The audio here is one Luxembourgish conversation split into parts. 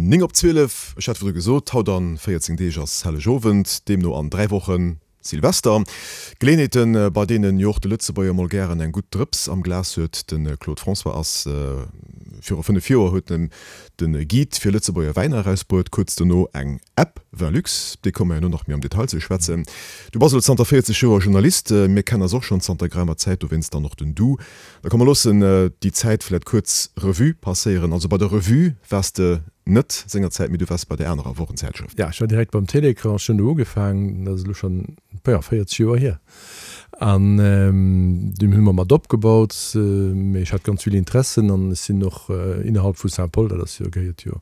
9 op 12, ech hat virdru gesot, haut a 14 Deeg ass Hellegowend, deemno an 3 Wochen Silvester. Geleeënheeten, bei deenen jo och de Lëtzebuerger mol gären eng gutt Drëps am Glas huet. De Claude François ass viru 5 Joer huet en de Guide fir Lëtzebuerger Wäiner erausbruet, kuerz dono eng App, Vinlux, op déi komme mer herno nach méi am Detail ze schwätzen. Du bass elo zanter 40 Joer Journalist, mir kennen eis och schonn zanter geraumer Zäit, dowéinst dann och den Du. Da komm mer loossen déi Zäit vläit kuerz Revue passéieren. Also bei der Revue waars de net sengerzäit, mee du waars bei där anerer Wochenzäitschrëft. Ja, ech war direkt beim Télécran, ech hunn do ugefaangen, dat ass elo schonn, jo, 40 Joer hier. An dunn hu mer mat opgebaut, mee ech hat ganz vill Interessen an ech sinn och innerhalb vu Saint-Paul, dat ass jo, gehéiert jo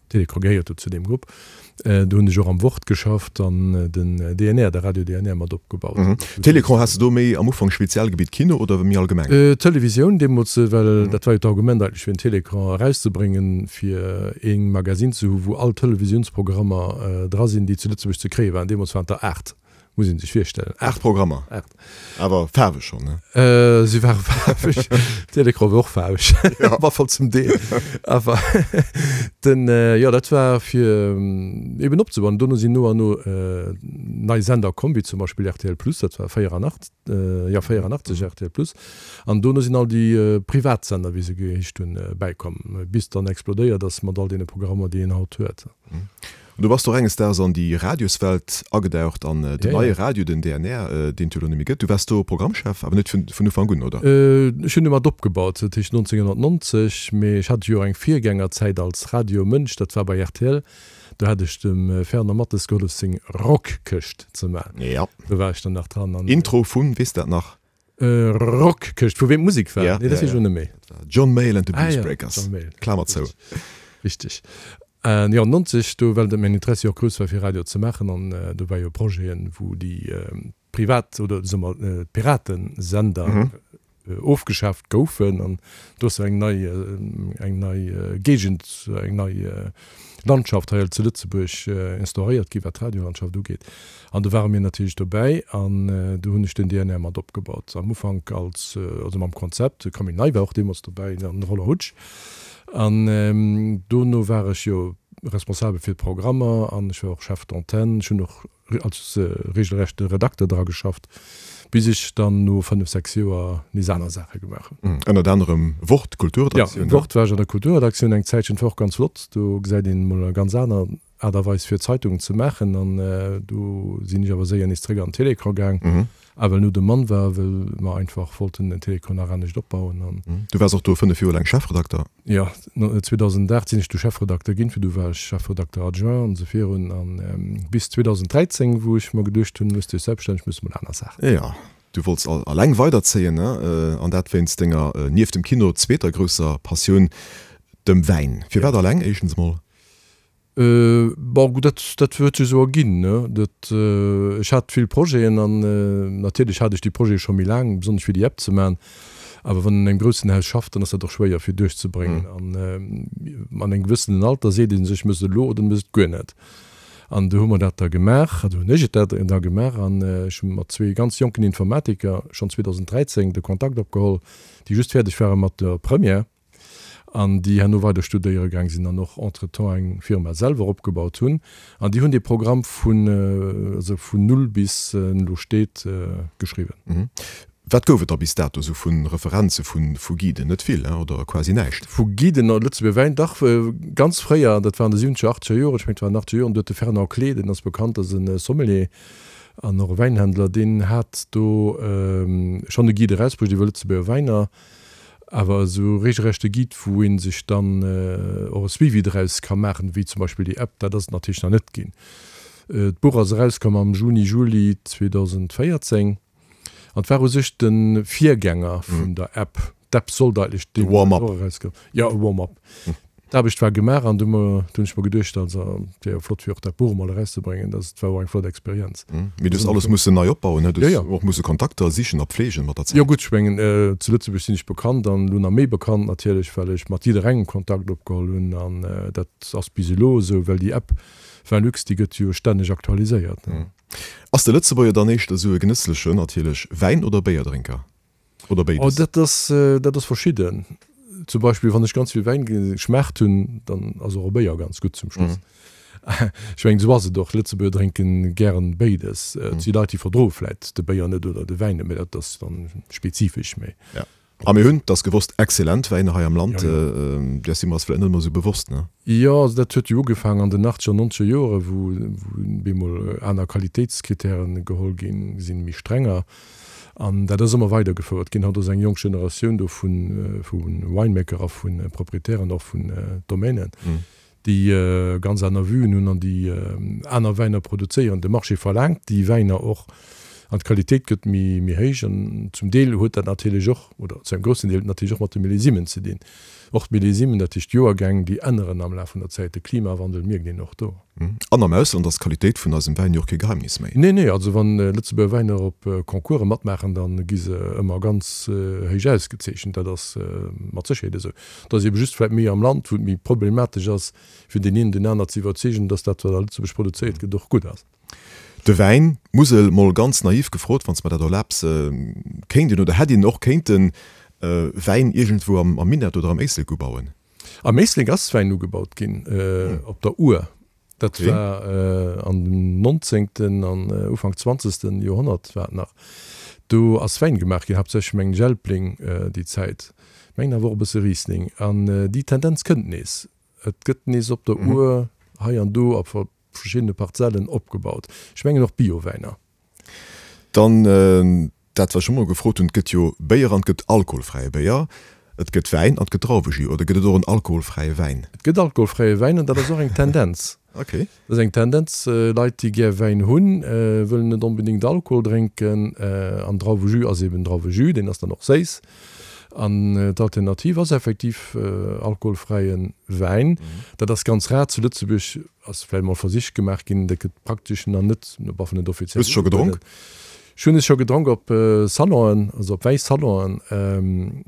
Télécran gehéiert do zu deem Grupp. Do hunn ech och am Wort geschafft an den DNR, de Radio DNR mat opgebaut. Télécran, has de do méi am Ufank Spezialgebitt Kino oder méi allgemeng? Televisioun deemools, well dat war jo d'Argument eigentlech fir den Télécran erauszebréngen, fir ee Magasinn ze hu wou all Televisiounsprogrammer dra sinn, déi zu Lëtzebuerg ze kréie waren. Deemools waren et der 8. Muss een sech virstellen. 8 Programmer. 8. Awer faarweg schonn, ne? Si ware faarweg. D'Télécran war och faarweg. Ja. Op alle Fall zum Deel. Awer den, jo, dat war fir eben opzebauen. Dono sinn no an no nei Sender komm, wéi zum Beispill rtl Plus, dat war 84, jo, 84 rtl Plus. An dono sinn all déi privat Sender, wéi se geheescht hunn, bäikomm, bis et dann explodéiert ass mat all deene Programmer, déi een haut huet. An du bass och enges Daags an déi Radioswelt agedaucht, an den neie Radio, den DNR, deen et jo elo net méi gëtt. Du waars do Programmchef, awer net vun Ufank un, oder? Ech hunn e mat opgebaut, dat heescht 1990, mee ech hat jo och eng Virgängerzäit als Radiomënsch, dat war bei rtl. Do hat ech dem Fernand Mathes gehollef seng Rockkëscht ze maachen. Do war ech dann nach dran. Intro vun, weess dat nach? Rockkëscht, vu weem d'Musek war? Nee, dat weess ech elo net méi. John Mayall and the Blues Breakers. John Mayall. Klamer zou. Richteg. Jo, 90, do, well mäin Interessi och grouss war fir Radio ze maachen an do war jo Projeten, wou déi privat oder soe mer d'Piratensender ofgeschaaft goufen an do ass jo eng nei, eng nei Géigend, eng nei Landschaft hei zu Lëtzebuerg instauréiert gi wat d'Radiolandschaft ugeet. An do ware mir natierlech dobäi an do hunn ech den DNR mat opgebaut. Am Ufank als, also mam Konzept, de Camille Ney war och deemools dobäi an de Roland Hutsch. An dono war ech jo responsabel fir d'Programmer an ech war och Chef d'antenne. Ech hunn och als regelrechte Redakter dra geschafft, bis ech dann no 5, 6 Joer nees aner Saache gemaach hunn. Ënnert anerem Wort, Kulturredaktioun. Jo, Wort war ech an der Kulturredaktioun eng Zäitchen, dat war och ganz flott. Do gesäit een emol eng ganz aner Aart a Weis fir Zeitungen ze maachen an do sinn ech awer séier nees zréck an den Télécran gaang, a well no dem Mann war, well mer einfach wollten den Télécran nach anescht opbauen an. Du waars och do 5 Joer laang Chefredakter. Jo, 2008 sinn ech du Chefredakter ginn, virdu war ech Chefredakter adjoint an esou virun an bis 2013, wou ech mer geduecht hunn, muss dech selbststänneg, muss mol aner Saachen. Jo, du wollts alleng weiderzéien, ne? An dat wéinst denger, nieft dem Kino, zweeter grousser Passioun, dem Wäin. Firwat alleng, éischtens mol? Bon, gutt, dat, dat huet sech esou erginn, ne. Dat, ech hat vill Projeten an natierlech hat ech déi Projete scho méi laang, besonnesch fir déi App ze maachen. Awer wann een an engem groussen Haus schafft, dann ass dat och schwéier fir duerchzebréngen. An an engem gewëssenen Alter seet ee sech, Méchs et elo oder méchs et guer net. An du hu mer dat da gemaach, also hunn ech et dat da gemaach an ech hu mat zwee ganz jonken Informatiker schonn 2013 de Kontakt opgeholl, déi just fäerdeg ware mat der Première. an déi herno weider studéiere gaang sinn an och entretemps eng Firma selwer opgebaut hunn an déi hunn dee Programm vun, also vun null bis en elo steet, geschriwwen. Wat gouf et da bis dato esou vu Referenze vu Guiden? Net vill, oder quasi näischt? Vu Guiden a Lëtzebuerger Wäin? Dach, ganz fréier, dat war an de siwwenzeger, achteger Joren, ech mengen et war an den achteger Joren, do huet de Fernand Clé, deen ass bekannt, ass e Sommelier an och e Wäinhändler, deen hat do schonn e Guide erausbruecht iwwer Lëtzebuerger Wäiner. Awer esou regelrechte Guide, wou ee sech dann och e Suivi draus ka maachen, wéi zum Beispill déi App, dat ass et natierlech nach net ginn. D'Buch ass erauskomm am Juni, Juli 2014 an et war u sech de Virgänger vun der App. D'App sollt eigentlech deemools och erauskommen. Jo, e Warm-up. D'Aarbecht war gemaach an du hunn ech mer geduecht, also et wär jo flott fir och dat Buch emol erauszebréngen. Dat war och eng flott Experienz. Mee du hues alles mussen nei opbauen, ne? Du hues och musse Kontakter sichen a pflegen mat der Zäit. Jo gutt, ech mengen zu Lëtzebuerg sinn ech bekannt an elo nach méi bekannt natierlech, well ech mat jidderengem Kontakt opgeholl hunn an dat ass bis elo esou, well déi App Velux, déi gëtt jo stänneg aktualiséiert. Ass de Lëtzebuerger dann éischter esou e genësslechen, natierlech, Wäin oder Béierdrénker? Oder béides? Oh, dat ass, dat ass verschidden. Zum Beispill wann ech ganz vill Wäin geschmaacht hunn, dann ass och e Béier ganz gutt zum Schluss. Ech mengen, esou ass et och. Lëtzebuerger drénken gären béides. Et si Leit, déi verdroe vläit de Béier net oder de Wäin net, mee dat ass dann spezifesch méi. Ja. A mir hunn, 't ass gewosst, exzellent Wäiner hei am Land. Där si mer eis vläit net ëmmer esou bewosst, ne? Jo, also dat huet jo ugefaangen an den achtzeger, nonzeger Joren, wou bemol aner Qualitéitskritären geholl ginn sinn, méi strenger. An dat ass ëmmer weidergefouert ginn. Haut ass eng jonk Generatioun do vu Winemaker a vu Proprietären och vun Domainen, déi ganz aner Vuen hunn an déi aner Wäiner produzéieren. De Marché verlaangt déi Wäiner och an d'Qualitéit gëtt méi méi héich. An zum Deel huet dat natierlech och, oder zu engem groussen Deel natierlech och mat de Millésimen ze dinn. Och d'Millésimen, dat heescht d'Joergäng, déi änneren am Laf vun der Zäit. De Klimawandel mierkt een och do. An am Ausland ass d'Qualitéit vun eisem Wäin jo och kee Geheimnis méi. Nee, nee, also wann Lëtzebuerger Wäiner op Concourse matmaachen, da gi se ëmmer ganz héich ausgezeechent. Dat ass mat Sécherheet esou. Et ass ebe just vläit méi am Land, wou et méi problematesch ass, fir deen een deen aner ze iwwerzeegen, dass dat, wat a Lëtzebuerg produzéiert gëtt, och gutt ass. De Wäin, d'Musel, mol ganz naiv gefrot, wann s mer dat erlaabs, kéint een oder hätt een och kéinten Wäin iergendwou am Minett oder am Éislek ubauen? Am Éislek ass Wäin ugebaut ginn, op der Our. Dat war an dem nonzéngten an Ufank zwanzegsten Joerhonnert war et nach. Do ass Wäin gemaach ginn, haaptsächlech mengen ech Elbling déi Zäit, mengen awer och e bësse Riesling. An déi Tendenz kënnt nees. Et gëtt nees op der Our hei an do a verschiddene Parzellen opgebaut. Ech mengen och Biowäiner. Dann dat wat ech scho mol gefrot hunn, et gëtt jo Béier an et gëtt alkoholfräie Béier, et gëtt Wäin an et gëtt Drauwejus. Oder gëtt et och en alkoholfräie Wäin? Et gëtt alkoholfräie Wäin an dat ass och eng Tendenz. Okay. Dat ass eng Tendenz, Leit déi gär Wäin hunn, wëllen net onbedéngt Alkohol drénken an Drauwejus ass eben Drauwejus, deen ass dann och séiss. An d'Alternativ ass effektiv alkoholfräie Wäin. Dat ass ganz rar zu Lëtzebuerg. Ass vläicht mol Versich gemaach ginn, dat gëtt praktesch nach net, op alle net offiziell. Hues de scho gedronk? Ech hunn es scho gedronk op Salonen, also op Wäisalonen.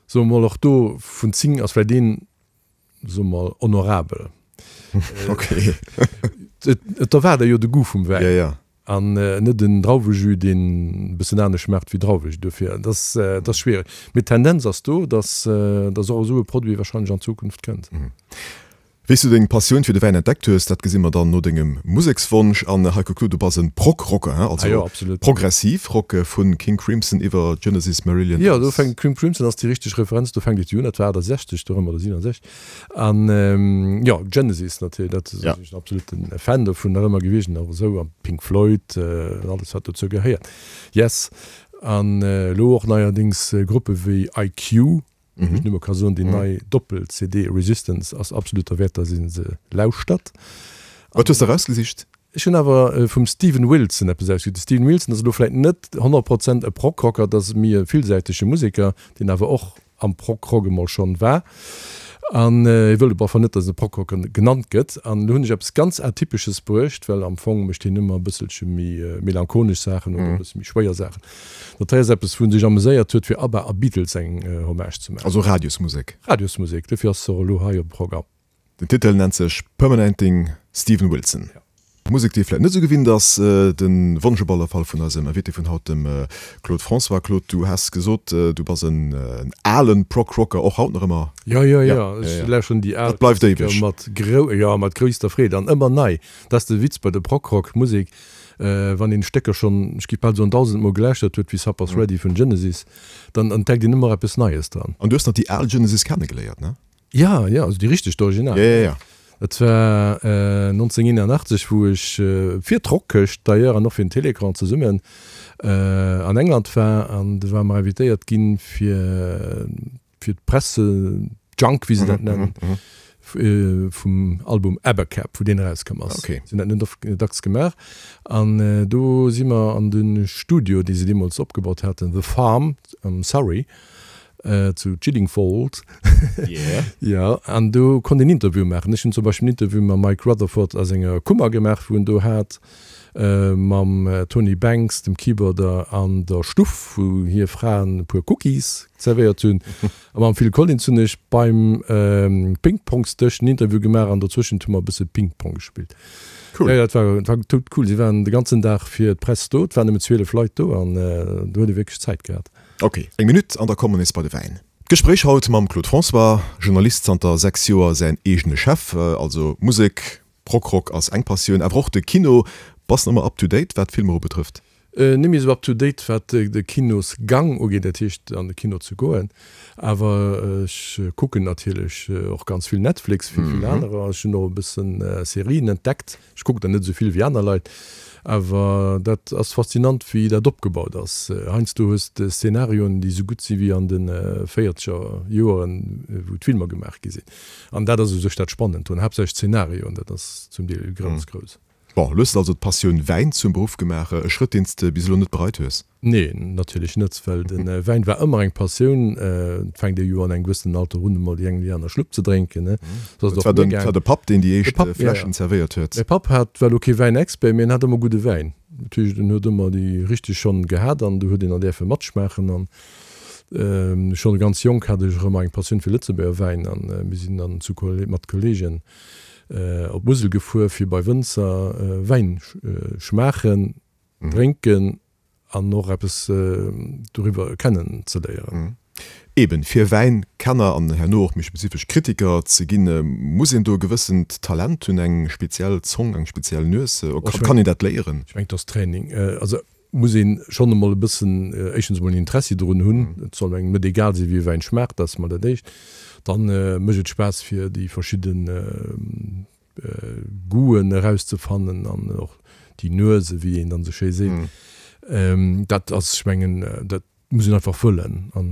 Soe mer mol, och do vun 10 ass vläicht een, soe mer mol, honorabel. Okay. Et erwaart ee jo de Goût vum Wäin. Ja, ja. An net en Drauwejus, deen e bëssen anescht schmaacht wéi Drauwejus. Dofir, et ass, et ass schwiereg. Mee d'Tendenz ass do, dass, dass och esou e Produit wahrscheinlech an Zukunft kënnt. Wéi s du deng Passioun fir de Wäin entdeckt hues, dat gesi mer dann no dengem Musekswonsch. An Heiko Kluth, du bass e Prog-Rocker, hein? Also Ah jo, absolut. progressiv Rock, vu King Crimson iwwer Genesis, Marillion Jo, do fänkt, King Crimson ass déi richteg Referenz, do fänkt et jo un, dat war 68 dorëm oder 67. An jo, Genesis natierlech, dat sinn ech en absoluten Fan dovun nach ëmmer gewiescht, an och esou, an Pink Floyd an alles wat dozou gehéiert. Yes. An elo och neierdéngs Gruppe wéi IQ, Wou ech nëmme ka soen, déi nei Doppel-CD Resistance ass absolut derwäert, dass ee se lauschtert. Wat hues de erausgesicht? Ech hunn awer vum Steven Wilson eppes ausgesicht. De Steven Wilson ass elo vläit net 100 Prozent e Prog-Rocker, dat ass méi e villsäitege Museker, deen awer och am Prog-Rock emol schonn war. An hie wëllt op alle Fall net, dass en e Prog-Rocker genannt gëtt. An elo hunn ech eppes ganz Atypesches bruecht, well am Fong mécht hien ëmmer e bësselche méi melancholesch Saachen oder e bësse méi schwéier Saachen. Dat hei ass eppes, wou en sech ameséiert huet, fir ABBA a Beatles eng Hommage ze maachen. Also Radiosmusek. Radiosmusek, dofir ass se och elo hei op dem Programm. Den Titel nennt sech Permanenting Steven Wilson. Musek, déi ee vläit net esou gewinnt ass. De Wonsch op alle Fall vun eisem Invité vun haut, dem Claude François. Claude, du has gesot, du bass en alen Prog-Rocker, och haut nach ëmmer? Jo, jo, jo, ech lauschteren déi al Dat bleift éiweg. Mat grou, jo, mat grousster Freed an ëmmer nei. Dat ass de Witz bei der Prog-Rock-Musek. Wann een Stécker schonn, ech gi bal soen, dausendmol gelauschtert huet, wéi Supper's Ready vun Genesis, dann entdeckt een ëmmer eppes Neies dran. An du hues nach déi al Genesis kennegeléiert, ne? Ja, ja, also déi richteg, d'Original. Ja, ja, ja. Dat war 1981, wou ech fir d'Rockkëscht d'ailleurs an och fir den Télécran zesummen an England war an du ware mer invitéiert ginn fir fir d'Presse-Junk, wéi se dat nennen, vum Album Abacab, wou deen erauskomm ass. Okay. Si hunn dat net oft, dacks gemaach. An do si mer an de Studio, dee se deemools opgebaut haten, The Farm am Surrey, zu Chiddingfold. Yeah. Jo, an do konnt een Interviewe maachen. Ech hunn zum Beispill en Interview mam Mike Rutherford a senger Kummer gemaach, wou en do hat. Mam Tony Banks, dem Keyboarder, an der Stuff, wou hir Fraen e puer Cookies zerwéiert hunn. A mam Phil Collins hunn ech beim Ping-Pongs-Dësch en Interview gemaach an dozwëschent hu mer e bësse Ping-Pong gespillt. Cool. Jo, jo, dat war, dat war tout cool. Si waren de ganzen Dag fir d'Press do. Et waren nëmmen 12 Leit do an do huet ee wierklech Zäit gehat. Ok, eng Minutt an da komme mer nees bei de Wäin. D'Gespréich haut mam Claude François, Journalist, zanter 6 Joer säin eegene Chef. Also Musek, Prog-Rock ass eng Passioun, awer och de Kino. Bass de ëmmer up to date wat d'Filmer ubetrëfft? Net méi esou up to date wat de Kinosgang ugeet, dat heescht an de Kino ze goen, awer ech kucken natierlech och ganz vill Netflix, wéi vill anerer. Ech hunn och e bëssen Serien entdeckt. Ech kucken der net esou vill wéi aner Leit, awer dat ass faszinant wéi dat opgebaut ass. Heiansdo hues de Szenarioen déi esou gutt si wéi an de véierzeger Joeren wou d'Filmer gemaach gi sinn. An dat ass u sech dat Spannend drun, haaptsächlech d'Szenarioen, dat ass zum Deel grouss, grouss. Bon, elo hues de also d'Passioun Wäin zum Beruff gemaach, e Schrëtt deen s de bis elo net bereit hues? Nee, natierlech net, well de Wäin war ëmmer eng Passioun. Et fänkt ee jo an engem gewëssenen Alter un, emol déi eng oder déi aner Schlupp ze drénken, ne? Sou ass et och mir gaangen. Dat war de Papp, deen déi éischt Fläschen zerwéiert huet? Mäi Papp hat, war elo kee Wäinexpert, mee en hat ëmmer gudde Wäin. Dat heescht, en huet ëmmer déi richteg schonn gehat an du huet een dann däerfe matschmaachen. An schonn ganz jonk hat ech och ëmmer eng Passioun fir Lëtzebuerger Wäin an mir sinn dann zu mat Kolleegen op d'Musel gefuer, fir bei Wënzer Wäin schmaachen. Drénken an och eppes doriwwer kennen ze léieren. Eben, fir Wäinkenner an herno och méi spezifesch Kritiker ze ginn, muss een do e gewëssent Talent hunn, eng speziell Zong, eng speziell Nues? Kann een dat léieren? Ech mengen, et ass Training. Also muss ee schonn emol e bëssen, éischtens emol en Interessi drun hunn. Et soll engem net egal sinn, wéi e Wäin schmaacht, dat ass emol dat Éischt. Dann mécht et Spaass, fir déi verschidden Goûten erauszefannen an och déi Nuese, wéi een dann esou schéi seet. Dat ass, ech mengen, dat muss een einfach wëllen an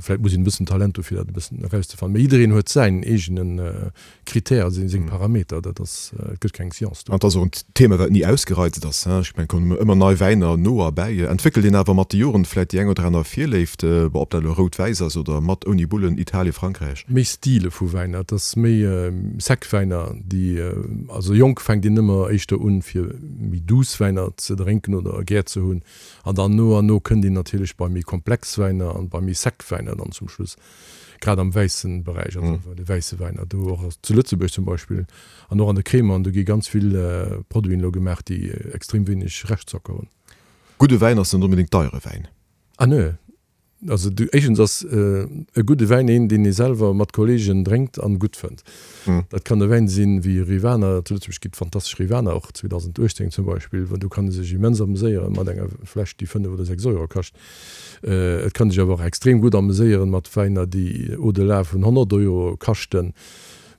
vläicht muss een e bëssen Talent hu fir dat e bëssen erauszefannen. Mee jiddereen huet säin eegene Critère, seng Parameter, dat ass, et gëtt keng Science do. An et ass och en Thema, wat ni ausgereizt ass. Ech mengen, et kommen ëmmer nei Wäiner no a bäi. Entwéckelt een awer mat de Joren vläicht déi eng oder aner Virléift, bon, ob dat elo rout-wäiss ass oder mat, ouni Bullen, Italien, Frankräich? Méi Stile vu Wäiner, et ass méi sec Wäiner, déi, also jonk fänkt een ëmmer éischter un, fir méi douce Wäiner ze drénken oder gär ze hunn, an dann no an no kënnt een natierlech bei méi komplex Wäiner an bei méi sec Wäiner dann zum Schluss. Grad am wäissen Beräich, also bei de wäisse Wäiner, do och zu Lëtzebuerg zum Beispill an och an de Crémanten, do gi ganz vill Produiten elo gemaach, déi extrem wéineg Reschtzocker hunn. Gudde Wäin ass net onbedéngt deiere Wäin. Ah nö. Also du, éischtens ass e gudde Wäin een, deen ee selwer mat Kollegen drénkt an gutt fënnt. Dat kann e Wäin sinn wéi Rivaner, zu Lëtzebuerg gi et fantastesch Rivaner, och 2018 zum Beispill, do kann ee sech immens ameséiere mat enger Fläsch, déi 5 oder 6 Euro kascht. Et kann sech awer och extrem gutt ameséieren mat Wäiner, déi au-delà vun 100 Euro kaschten.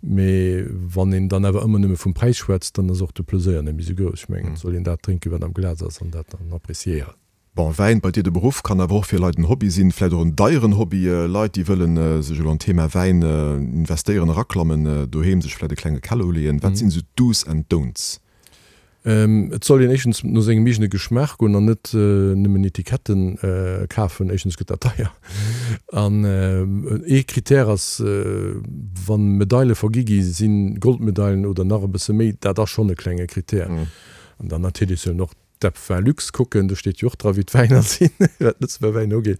Mee wann een dann awer ëmmer nëmme vum Präis schwätzt, dann ass och de Pleséier net méi sou grouss. Ech mengen, et soll een dat drénken, wat am Glas ass an dat dann appréciéieren. Bon, Wäin, bei dir de Beruff, kann awer och fir Leit en Hobby sinn, vläicht och en deieren Hobby. Leit, déi wëllen sech elo an d'Thema Wäin investéieren, eraklammen, doheem sech vläicht e klenge Keller uleeën. Wat sinn esou d'Do's and Don'ts? Et soll een éischtens no sengem eegene Geschmaach goen an net nëmmen Etiketten kafen. Éischtens gëtt dat deier. An ee Critère ass, wa Medaile vergi gi sinn, Goldmedailen oder nach e bësse méi, dat ass schonn e klenge Critère. An dann natierlech sollen och d'App Vinlux kucken, do steet jo och dra wéi d'Wäiner sinn, wat d'Lëtzebuerger Wäiner ugeet.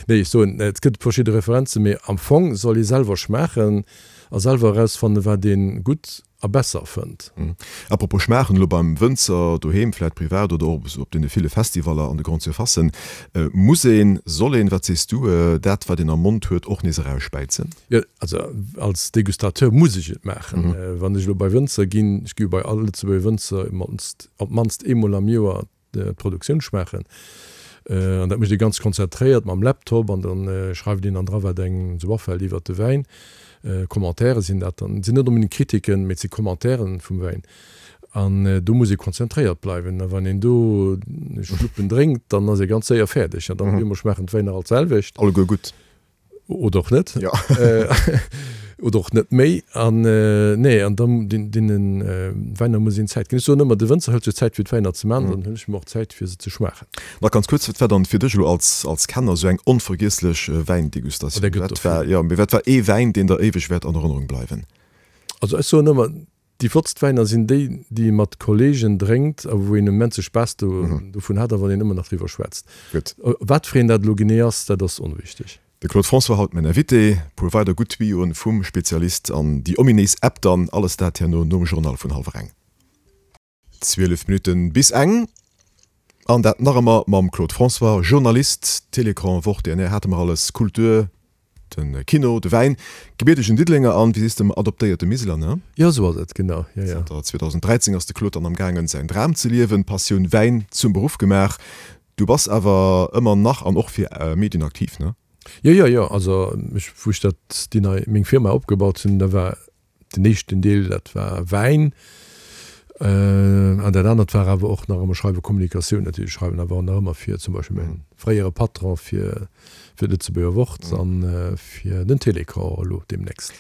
Nee, ech soen, et gëtt verschidde Referenzen, mee am Fong soll ee selwer schmaachen a selwer erausfannen, wat ee gutt a besser fënnt. Apropos schmaachen, elo beim Wënzer doheem, vläit privat oder och op deene ville Festivaller an de Grande Surfacen, muss een, soll een, wat sees du, dat wat een am Mond huet och nees erausspäizen? Jo, also als Degustateur muss ech et maachen. Wann ech elo bei Wënzer ginn, ech gi jo bei all Lëtzebuerger Wënzer op d'mannst eemol am Joer d'Produktioun schmaachen. An dat mécht ee ganz konzentréiert mam Laptop an da schreift een dann dra wat engem esou afält iwwert de Wäin. Commentaire sinn dat dann, et sinn net onbedéngt Kritiken, mee et si Commentairen vum Wäin. An do muss ee konzentréiert bleiwen. A wann een do Schluppen drénkt, dann ass ee ganz séier fäerdeg. An dann op eemol schmaachen d'Wäiner all d'selwecht. Alleguer gutt. Oder och net. Ja. Oder och net méi. An nee, an dann deene Wäiner muss een Zäit ginn. Ech soen ëmmer, de Wënzer hëlt sech Zäit fir d'Wäiner ze maachen, dann huelen ech mir och Zäit fir se ze schmaachen. Nach ganz kuerz, wat war dann fir dech elo als als Kenner esou eng onvergiesslech Wäindegustatioun? Oh, der gëtt der vill. Jo, mee wat war ee Wäin, deen der éiweg wäert an Erënnerung bleiwen? Also ech soen ëmmer, Déi flottst Wäiner sinn déi, déi ee mat Kollegen drénkt a wou een immense Spaass dovun hat a wann een ëmmer nach driwwer schwätzt. Gutt. Wat fir een dat elo genee ass, dat ass onwichteg. De Claude François haut mäin Invité. Puer weider gutt Tuyauxen vum Spezialist an déi ominéis App dann. Alles dat herno nom Journal vun hallwer eng. 12 Minutten bis eng. An dat nach ëmmer mam Claude François, Journalist, Télécran, Wort, DNR hate mer alles, Kultur. De Kino, de Wäin, gebiertegen Diddelenger an, wéi sees de, adoptéierte Miseler, ne? Jo, esou ass et, genau, jo, jo. Zanter 2013 ass de Claude dann am gaangen, säin Dram ze liewen, d'Passioun Wäin zum Beruff gemaach. Du bass awer ëmmer nach an och fir Medien aktiv, ne? Jo, jo, jo, also ech, wou ech dat, déi nei, meng Firma opgebaut hunn, da war Den éischten Deel, dat war Wäin. An dat anert war awer och nach ëmmer Schreiwen, Kommunikatioun natierlech. Ech schreiwen awer och nach ëmmer fir zum Beispill mäi fréiere Patron, fir fir d'Lëtzebuerger Wort an fir den Télécran elo deemnächst.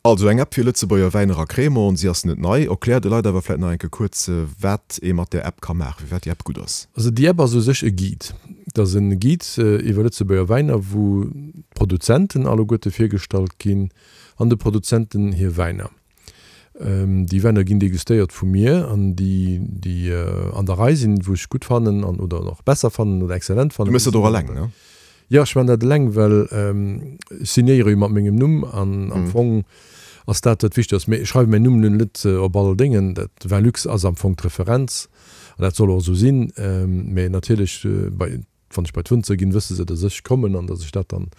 Also eng App fir Lëtzebuerger Wäiner a Cremant. Si ass net nei. Erklär de Leit awer vläit nach eng Kéier kuerz, wat ee mat där App ka maachen, firwat déi App gutt ass. Also déi App ass u sech e Guide. Et ass e Guide iwwer Lëtzebuerger Wäiner, wou d'Produzenten alleguerte virgestallt ginn, an de Produzenten hir Wäiner. Déi Wäiner ginn degustéiert vu mir an déi, déi an der Rei sinn, wou ech gutt fannen an oder och besser fannen oder exzellent fannen. Du méchs dat och eleng, ne? Jo, ech man dat eleng, well ech signéiere jo mat mengem Numm an am Fong ass dat dat Wichtegst. Mee ech schreiwe mäin Numm nun net op all Déngen. Dat Velux ass am Fong d'Referenz an dat soll och esou sinn. Mee natierlech bei Wann ech bei d'Wënzer ginn, wësse se, dass ech kommen an dass ech dat dann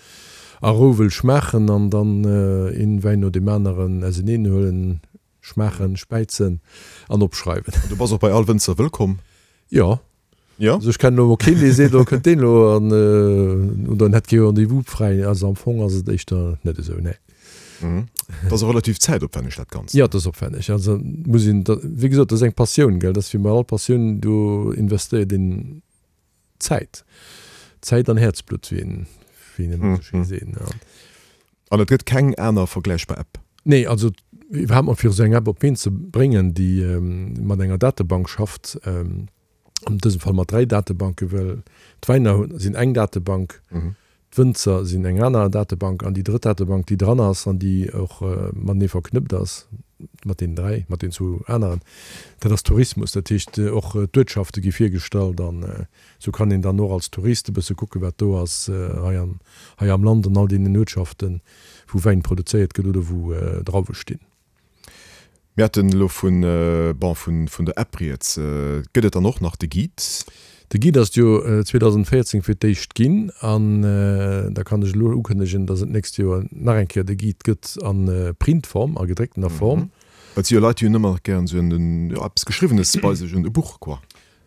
a Rou wëll schmaachen an dann een Wäin no deem aneren auseneen huelen, schmaachen, späizen an opschreiwen. An du bass och bei all Wënzer wëllkomm? Jo. Jo? Also ech kennen elo mol keen, dee seet, oh kënnt deen elo an oder en hätt kee Rendez-vous fräi. Also am Fong ass et éischter net esou, nee. Et ass och relativ zäitopwänneg dat Ganzt. Jo, et ass opwänneg. Also muss een, wéi gesot, dat ass eng Passioun, gell. Dat ass wéi bei all Passioun, do investéiert een Zäit. Zäit an Häerzblutt, wéi een wéi een ëmmer esou schéi seet, ne. An et gëtt keng aner vergläichbar App? Nee, also iwwerhaapt mol fir esou eng App op d'Been ze bréngen, déi mat enger Datebank schafft, an dësem Fall mat 3 Datebanken, well d'Wäiner sinn eng Datebank, D'Wënzer sinn eng aner Datebank an déi drëtt Datebank, déi dran ass an déi och matenee verknëppt ass mat deenen 3, mat deenen zwou aneren, dat ass Tourismus. Dat heescht, och d'Uertschafte gi virgestallt an esou kann een dann och als Tourist e bësse kucken, wat do ass hei am, hei am Land an all deenen Uertschaften, wou Wäin produzéiert gëtt oder wou Drauwe stinn. Mir haten elo vun, bon, vun, vun der App rieds. Gëtt et dann och nach de Guide? De Guide ass et jo 2014 fir d'éischt ginn an da kann ech elo ukënnegen, dass et d'nächst Joer nach eng Kéier de Guide gëtt a Printform, a gedrécktener Form. Well et si jo Leit, déi hunn ëmmer nach gären esou en, jo, eppes Geschriwwenes bei sech, en e Buch, quoi.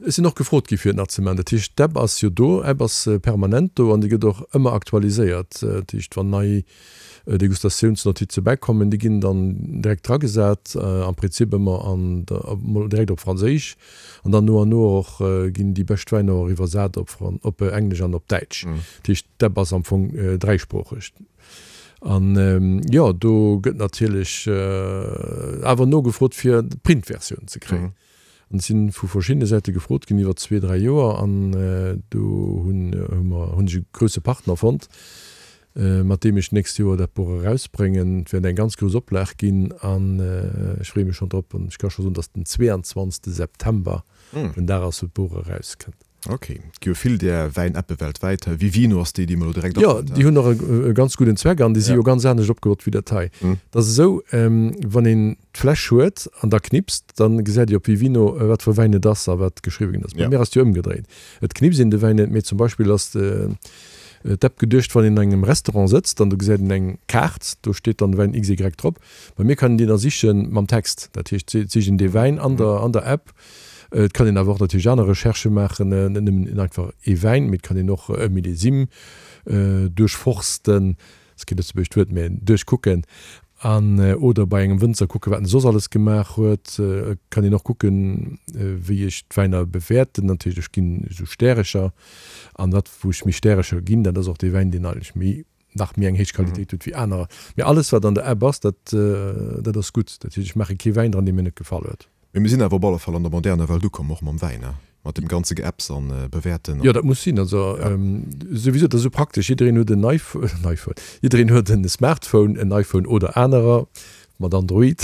Ech sinn och gefrot gi fir et nach ze maachen. Dat heescht, d'App ass jo do, App ass permanent do an déi gëtt och ëmmer aktualiséiert. Dat heescht, wann nei Degustatiounsnotize bäikommen, déi ginn dann direkt dragesat, am Prinzip ëmmer an der, mol direkt op Franséisch an dann no an no och ginn déi bescht Wäiner och iwwersat op op Englesch an op Däitsch. Dat heescht, d'App ass am Fong dräisproocheg. An jo, do gëtt natierlech awer nogefrot fir d'Printversioun ze kréien. An ech sinn vu verschiddene Säite gefrot ginn iwwer zwee, dräi Joer. An do hunn hu mer, hunn ech e grousse Partner fonnt, mat deem ech d'nächst Joer dat Buch erausbréngen. Et wäert eng ganz grouss Oplag ginn an ech freeë mech schonn drop. An ech ka scho soen, datt den 22. September den Dag ass, wou d'Buch erauskënnt. Ok, et gi jo vill där Wäin-Appe weltwäit. Vivino ass déi, déi mer elo direkt Jo, déi hunn och e ganz gudden Zweck an déi si jo ganz anescht opgebaut wéi dat hei. Et ass esou, wann een d'Fläsch huet an da knipst, da gesäit ee op Vivino, wat fir e Wäin et ass a wat geschriwwe ginn ass. Bei mir ass et jo ëmgedréit. Et knipst een de Wäin net, mee zum Beispill ass d'App geduecht, wann een an engem Restaurant sëtzt an do gesäit een eng Kaart, do steet dann de Wäin XY drop. Bei mir kann een deen da siche mam Text. Dat heescht, et sicht een dee Wäin an der App. Et kann een awer och natierlech aner Recherchë maachen, net nëmmen einfach ee Wäin, mee et kann een och e Millésime duerchforsten, ass kee lëtzebuergescht Wuert, mä duerchkucken, an oder bei engem Wënzer kucken, wat en soss alles gemaach huet. Et kann een och kucken, wéi ech d'Wäiner bewäerten. Natierlech, ech ginn esou Stärecher, an dat wou ech méi Stärecher ginn, dat ass och dee Wäin, deen eigentlech méi nach méi eng héich Qualitéit huet wéi anerer. Mee alles wat an der App ass, dat dat ass gutt. Dat heescht, ech maache kee Wäin dran, dee mir net gefall huet. Mee mir sinn awer op alle Fall an der moderner Welt ukomm, och mam Wäin, ne? Mat deem ganze Geapps an Bewäerten. Jo, dat muss sinn. Also souwisou, dat ass esou praktesch. Jiddereen huet en iPhone, jiddereen huet en Smartphone, en iPhone oder anerer mat Android,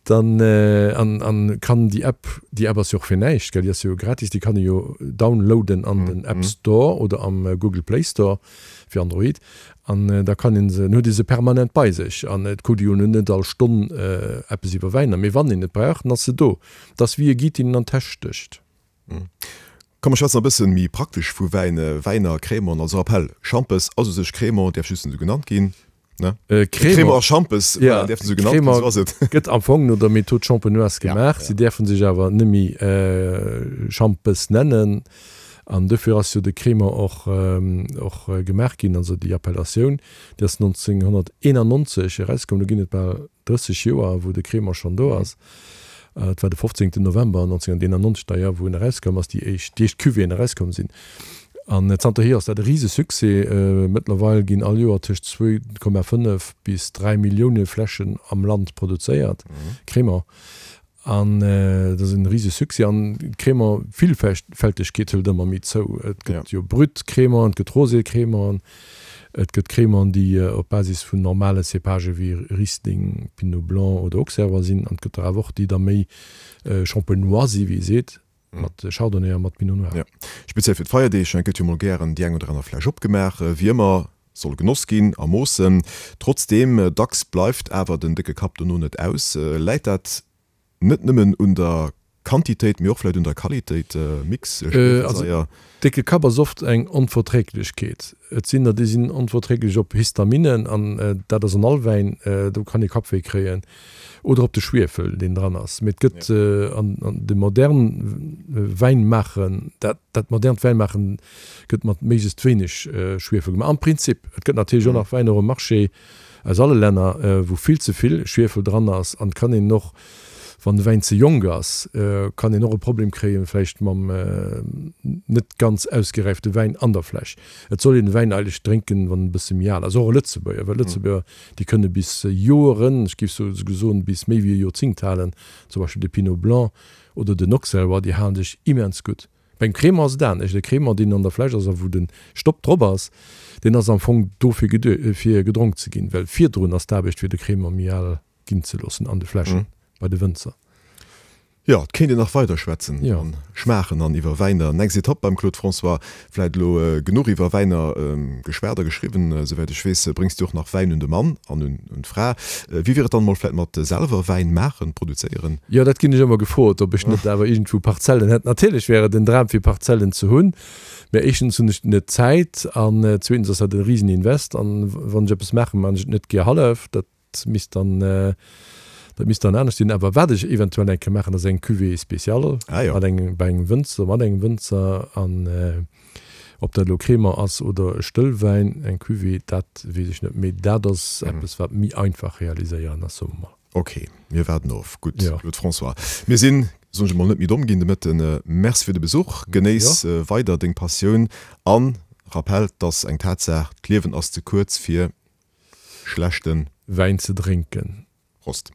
dann an an kann déi App, déi App ass jo och fir näischt, gell, déi ass jo gratis, déi kann ee jo downloaden an den App Store oder am Google Play Store. fir Android, an da kann een se, dann huet ee se permanent bei sech an et kuckt ee jo net all Stonn eppes iwwer Wäiner, mee wann een et brauch, dann ass se do. Et ass wéi e Guide, deen een an d'Täsch stécht. Komm mer schwätzen e bëssen méi praktesch vu Wäin, Wäiner, Crémant, also Rappel, Schampes ass u sech Crémant, däerf just net esou genannt ginn, ne? Crémant a Schampes, voilà, däerfen esou genannt ginn, esou ass et. Crémant gëtt am Fong no der Méthode champenoise gemaach, si däerfe sech awer net méi Schampes nennen an dofir ass jo de Crémant och och gemaach ginn, also déi Appellatioun, déi ass 1991 erauskomm, do ginn et bal 30 Joer, wou de Crémant schonn do ass. Et war de 15 November 1991 d'ailleurs, wou en erauskoum ass, déi éischt, déi éischt Cuvéeën erauskomm sinn. An zanterhier ass dat e rise Succès. Mëttlerweil ginn all Joer tëscht 2,5 bis 3 Millioune Fläschen am Land produzéiert, Crémant. An dat ass e rise Succès. An d'Crémant-Villfältegkeet hëlt ëmmer méi zou. Et gëtt jo Brut Crémant, et gëtt Rosé Crémant, Et gëtt Crémant, déi op Basis vun normale Cépagë wéi Riesling, Pinot Blanc oder Auxerrois sinn, an et gëtt der awer och, déi da méi Champenois si wéi ee seet, mat Chardonnay a mat Pinot Noir. Jo, speziell fir d'Feierdeeg gëtt jo mol gären déi eng oder aner Fläsch opgemaach. Wéi ëmmer soll genoss ginn a Moossen. Trotzdeem, dacks bleift awer den décke Kapp dono net aus. Läit dat Net nëmmen un der Quantitéit, mee och vläit un der Qualitéit, Mix, Schwiefelsaier. Décke Kapp ass oft eng Onverträglechkeet. Et sinn der, déi sinn onverträglech op Histaminen, an dat ass an all Wäin, do kann ee Kappwéi kréien, oder op de Schwiefel, deen dran ass. Mee et gëtt an de modern Wäinmaachen, dat dat modernt Wäinmaachen gëtt mat méiglechst wéineg Schwiefel gemaach, am Prinzip. Et gëtt natierlech och nach Wäiner um Marché, Aus alle Länner, wou vill ze vill Schwiefel dran ass, an kann een och, wann de Wäin ze jonk ass, kann een och e Problem kréien, vläicht mam net ganz ausgeräifte Wäin an der Fläsch. Et soll een de Wäin eigentlech drénken, wann en e bësse méi al ass, och e Lëtzebuerger, well Lëtzebuerger, déi kënne bis Joeren, ech géif souguer soen, bis méi wéi e Joerzéngt halen, zum Beispill de Pinot Blanc oder den Auxerrois, déi halen sech immens gutt. Beim Crémant ass et anescht. E Crémant, deen an der Fläsch ass a wou de Stopp drop ass, deen ass am Fong dofir geduecht, fir gedronk ze ginn, well virdrun ass d'Aarbecht, fir de Crémant méi al ginn ze loossen an de Fläschen bei de Wënzer. Jo, et kéint een nach weider schwätzen an schmaachen an iwwer Wäiner. Next Etapp beim Claude François. Vläit elo genuch iwwer Wäiner geschwat a geschriwwen. Souwäit ech weess, bréngs du och nach Wäin un de Mann an un d'Fra. Wéi wier et dann emol vläit mat selwer Wäin maachen, produzéieren? Jo, dat ginn ech ëmmer gefrot, ob ech net awer iergendwou Parzellen hätt. Natierlech wär et en Dram fir Parzellen ze hunn, mä éischtens hunn ech net d'Zäit an zweetens ass dat e risen Invest an wann ech eppes maachen, maachen ech et net gär hallef. Dat misst dann, dat misst dann anescht sinn. Awer wat ech eventuell eng Kéier maachen, ass eng Cuvée spéciale mat engem, bei engem Wënzer, mat engem Wënzer an. Ob dat elo Crémant ass oder e Stëllwäin, eng Cuvée, dat weess ech net, mee dat ass eppes, wat méi einfach realiséieren ass, soe mer mol. Ok, mir waarden of. Gutt, Claude François, mir sinn, soen ech emol, net méi domm ginn de Mëtten. Merci fir de Besuch. Genéiss weider deng Passioun an Rappel, 't ass eng Tatsaach, d'Liewen ass ze kuerz fir schlechte. Wäin ze drénken. Prost.